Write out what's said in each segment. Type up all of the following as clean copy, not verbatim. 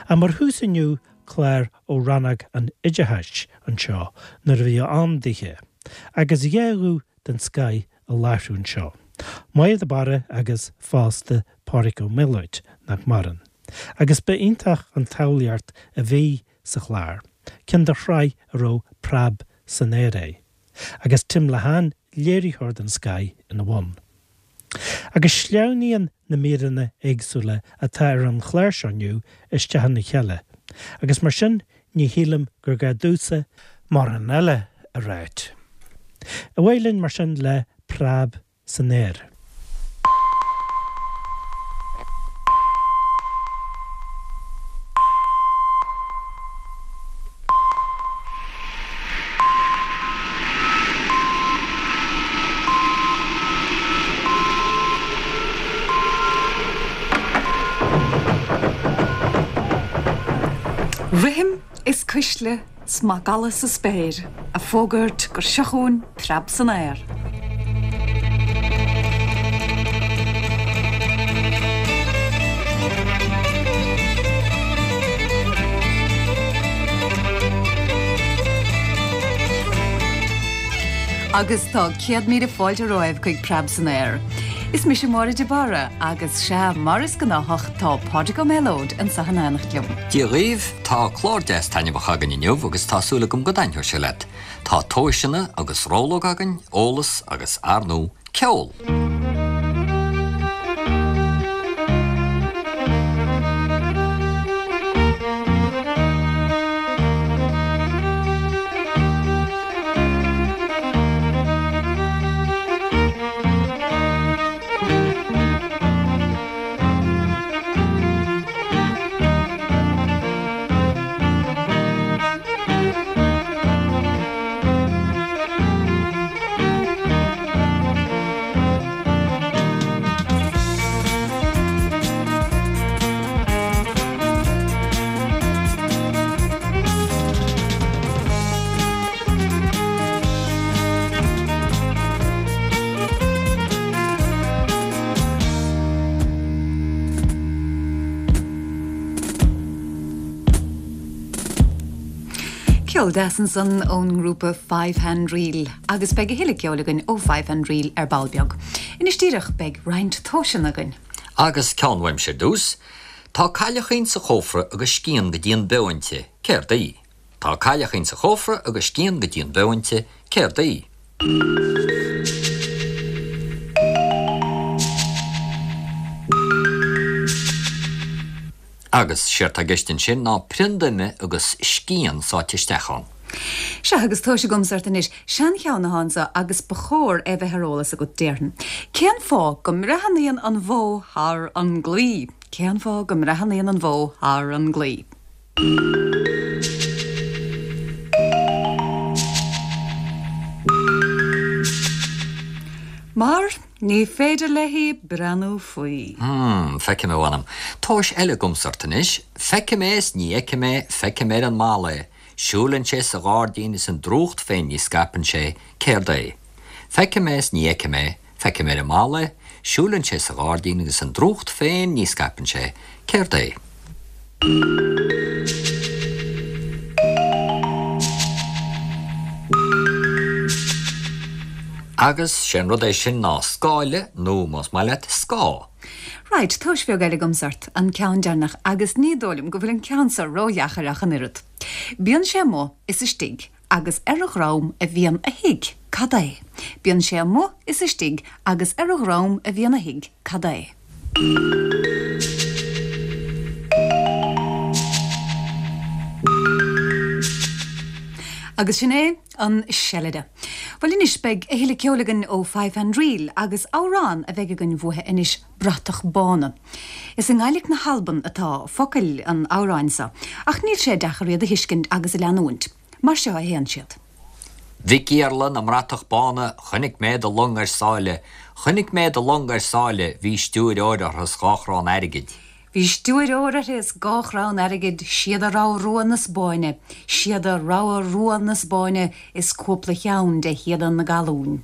Ach mar thús inniu, clár ó Rannóg an Oideachais anseo nuair a bhí ann daoithe, agus 2 ghuth den scoith i láithriú anseo, Máire de Barra agus fosta Pádraig Ó Méalóid, nach maireann. Agus ba iontach an tsamhlaíocht a bhí sa chlár, ceann de shraith a raibh Preab san Aer é, agus Tim Lehane, léiritheoir den scoith, ina bhun. Agus sleamhnaíonn na míreanna éagsúla atá ar an chlár seo inniu isteach ina chéile, agus mar sin ní shílim gur gá domhsa mórán eile a ráit. Ar aghaidh linn mar sin le Preab san Aer. Rithim is cuisle 's macalla sa spéir a' fógairt gur seo chugainn preab san aer. Agus tá 100,000 fáilte romhaibh chuig Preab san Aer. Is mise Máire de Barra agus sea, mar is gnáthach, tá Pádraig Ó Méalóid anseo in éineacht liom. Dia dhaoibh, tá clár deas taitneamhach againn inniu agus tá súil agam go dtaitneoidh sé leat. Tá tomhaiseanna agus rollóg againn, eolas agus, ar ndóigh, ceol! Ceol deas ansan ón ngrúpa Five Hand Reel agus beidh a thuilleadh ceoil againn ó Five Hand Reel ar ball beag. Anois díreach beidh roinnt tomhaiseanna againn. Agus ceann uaimse ar dtús. Tá cailleachín sa chófra agus scian go dtí an beo inti, céard í? Tá cailleachín sa chófra agus scian go dtí an beo inti, céard í? Agus séard tá i gceist ansin ná prionda ime agus scian sáite isteach ann. Sea, agus tomhas agamsa ort anois. Seancheann atá anso agus ba chóir é bheith ar eolas agat, déarfainn. Cén fáth go mbreathnaíonn an bhó thar an gclaí? Cén fáth go mbreathnaíonn an bhó thar an gclaí? Mar ní féidir léi breathnú faoi. Hmm, feicim, a mh'anam. Tomhas eile agamsa ort anois. Feicim é is ní fheicim é, feicim ar an mballa é. Siúlann sé sa ghairdín is an drúcht féin ní scaipeann sé, céard é? Feicim é is ní fheicim é, Feicim ar an mballa é, siúlann sé sa ghairdín agus an drúcht féin ní scaipeann sé, céard é? Agus sé an rud é sin ná scáile nó, más maith leat, scáth. Right, tomhas bheag eile agamsa ort, an ceann deireanach, agus ní dóigh liom go bhfuil an ceann seo ródheacair ach an oiread. Bíonn sé amuigh is istigh agus ar a dhrom a bhíonn a thigh, cad é? Bíonn sé amuigh is istigh agus ar a dhrom a bhíonn a thigh, cad é? Agus sin é an seilide. Bhuel anois beidh a thuilleadh ceoil againn ó Five Hand Reel agus amhrán a bheidh againn uathu anois, Bratach Bána. Is i nGaidhlic na hAlban atá focail an amhráin seo, ach níl sé deacair iad a thuiscint agus a leanúint. Mar seo a théann siad. Mhic Iarla na mBratach Bána, chonaic mé do long ar sáile, chonaic mé do long ar sáile, bhí stiúir óir uirthi 's dha chrann airgid. Bhí stiúir óir uirthi is dha chrann airgid, síoda rogha rua na Spáinne, síoda rogha rua na Spáinne is cúpla cheann de shíoda na gallún.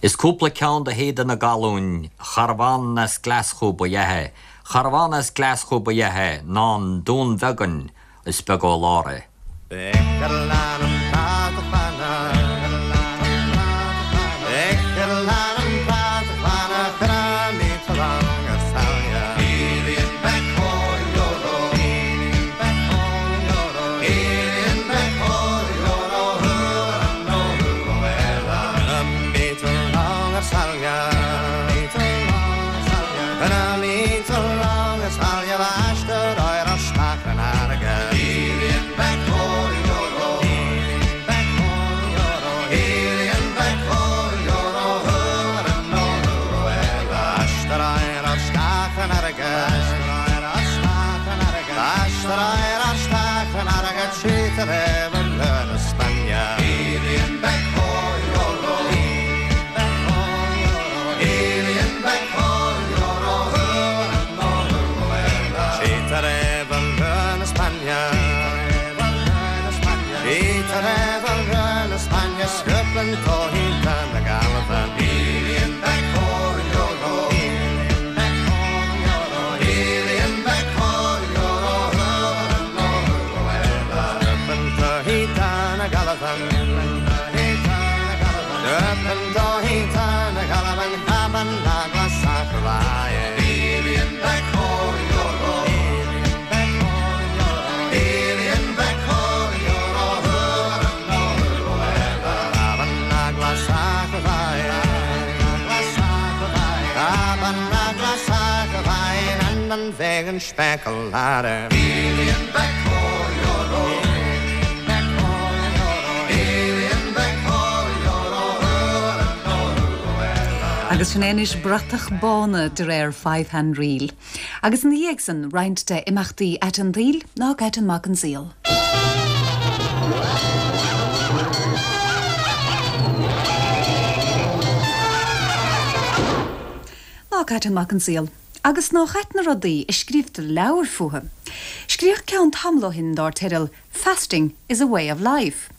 Is cúpla ceann de shíoda na gallún, charbhán as Glaschú ba ea é. Cha rabh ann as Glaschú ba ea é, ná an Dún Bheagáin, is beag ó lár é. Agus sin é anois Bratach Bána de réir Five Hand Reel. Agus ina dhiaidh san, roinnt de imeachtaí aite an tsaoil, nách ait an mac an saol. Nách ait an mac an saol. Agus nách ait na rudaí a scríobhtar leabhair fúthu. Scríodh ceann tamall ó shin dár teideal Fasting is a way of life.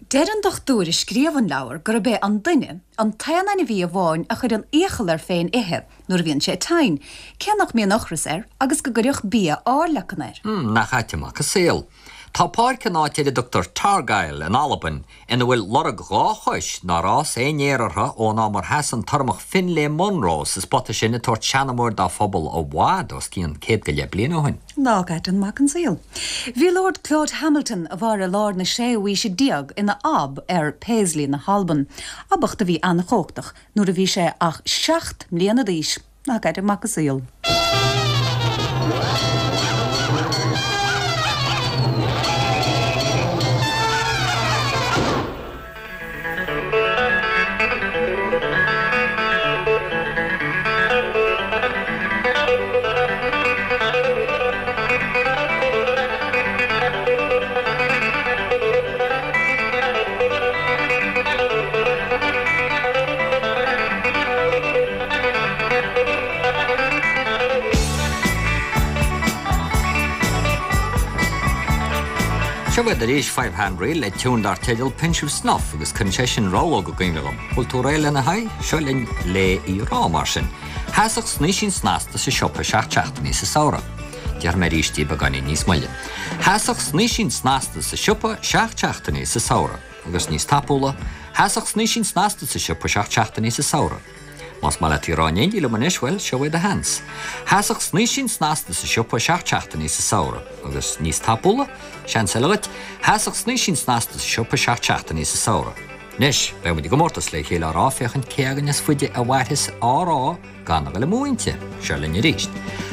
Deir an dochtúir a scríobh an leabhar gurb é an duine an t-aon ainmhí amháin a chuireann iachall air féin ithe nuair a bhíonn sé tinn, cé nach mbíonn ocras air agus go gcuirfeadh bia airleacan air. Nach ait an mac an saol. Tá páirc in áit ar a dtugtar Targyle in Albain ina bhfuil lorg 2 chois nár fhás aon fhéar orthu ón am ar sheas an tUrramach Finlay Munro sa spota sin ag tabhairt seanamóir dá phobal i bhfad os cionn 100 go leith bliain ó shin. Nách ait an mac an saol. Bhí Lord Claude Hamilton, a mhair i lár na séú haoise déag, ina Ab ar Paisley na hAlban, abacht a bhí an-chumhachtach nuair a bhí sé ach 7 mbliana d'aois. Nach ait an mac an saol. Seo iad arís Five Hand Reel le tiún dar teideal Pinch of Snuff agus cuireann sé sin rabhlóg i gcuimhne dhom. Bhfuil tú réidh lena haghaidh? Seo linn le í rá mar sin. Sheasadh snaoisín snasta sa siopa 7 seachtainí sa samhradh. Déarfaidh mé arís í beagáinín níos moille. Sheasadh snaoisín snasta sa siopa 7 seachtainí sa samhradh. Agus níos tapúla, sheasadh snaoisín snasta sa siopa 7 seachtainí sa samhradh. Más maith leat í a rá in éindí liom anois, bhuel, seo é do sheans. Sheasadh snaoisín snasta sa siopa 7 seachtainí sa samhradh. Agus níos tapúla, seans eile dhuit, sheasadh snaoisín snasta sa siopa 7 seachtainí sa samhradh. Anois, beidh muid i gcomórtas le chéile á rá féachaint cé againn is faide a mhairfeas á rá gan a ghoil amú inti. Seo linn arís.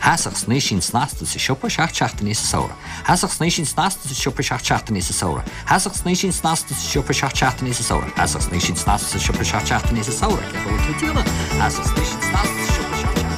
Sheasadh snaoisín snasta sa siopa 7 seachtainí sa samhradh. Sheasadh snaoisín snasta sa siopa 7 seachtainí sa samhradh. Sheasadh snaoisín snasta sa siopa 7 seachtainí sa samhradh. Sheasadh snaoisín snasta sa siopa 7 seachtainí sa samhradh. Cén chaoi a bhfuil tú ag déanamh? Sheasadh snaoisín snasta sa siopa 7 seachtainí.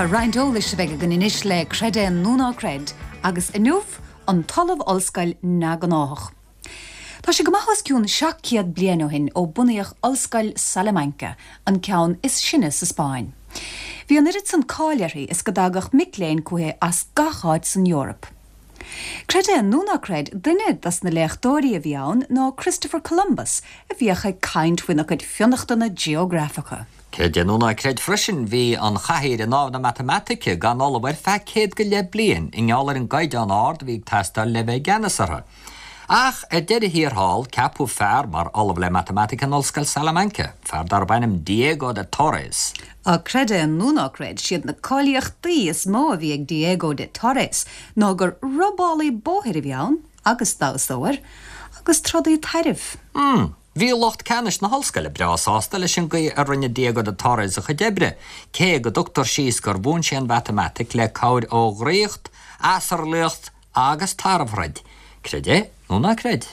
Sea, roinnt eolais a bheidh againn anois le Creid É nó Ná Creid, agus inniu, an tOllamh Ollscoil Neamhghnáthach. Tá sé go maith os cionn 700 bliain ó shin ó bunaíodh Ollscoil Salamanca, an ceann is sine sa Spáinn. Bhí an oiread san cáil uirthi is go dtagadh mic léinn chuici as gach áit san Eoraip. Creid é nó ná creid, duine dos na léachtóirí a bhí ann ná Christopher Columbus a bhíodh ag caint faoina chuid fionnachtana geografacha. Creid é nó ná creid freisin, bhí an chathaoir i nDámh na Matamaitice gan ollamh ar feadh 100 go leith bliain i ngeall ar an gcaighdeán ard a bhí ag teastáil le bheith i gceannas orthu. Ach ar deireadh thiar thall, ceapadh fear mar ollamh le Matamaitic in Ollscoil Salamanca, fear darb ainm Diego de Torres. Ach creid é nó ná creid, siad na cáilíochtaí is mó a bhí ag Diego de Torres ná gur robálaí bóthair a bhí ann, agus damhsóir, agus trodaí tairbh. Hmm. Bhí lucht ceannais na hollscoile breá sásta leis an gcaoi a rinne Diego de Torres a chuid oibre, cé go dtugtar síos gur mhúin sé an mhatamaitic le cabhair ó dhraíocht, asarlaíocht agus tarbhthroid. Creid é nó ná creid.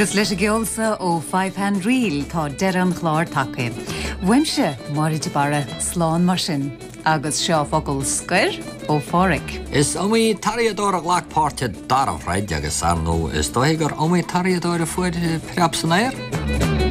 Agus leis an gceol so ó Five Hand Reel tá deireadh an chláir tagtha. Uaimse, Máire de Barra, slán mar sin. Agus seo focal scoir ó Pháraic. Is iomaí tarraíodóir a ghlac páirt i dtarbhthroid agus, ar ndóigh, is dóichí gur iomaí tarraíodóir a fuair preab san aer.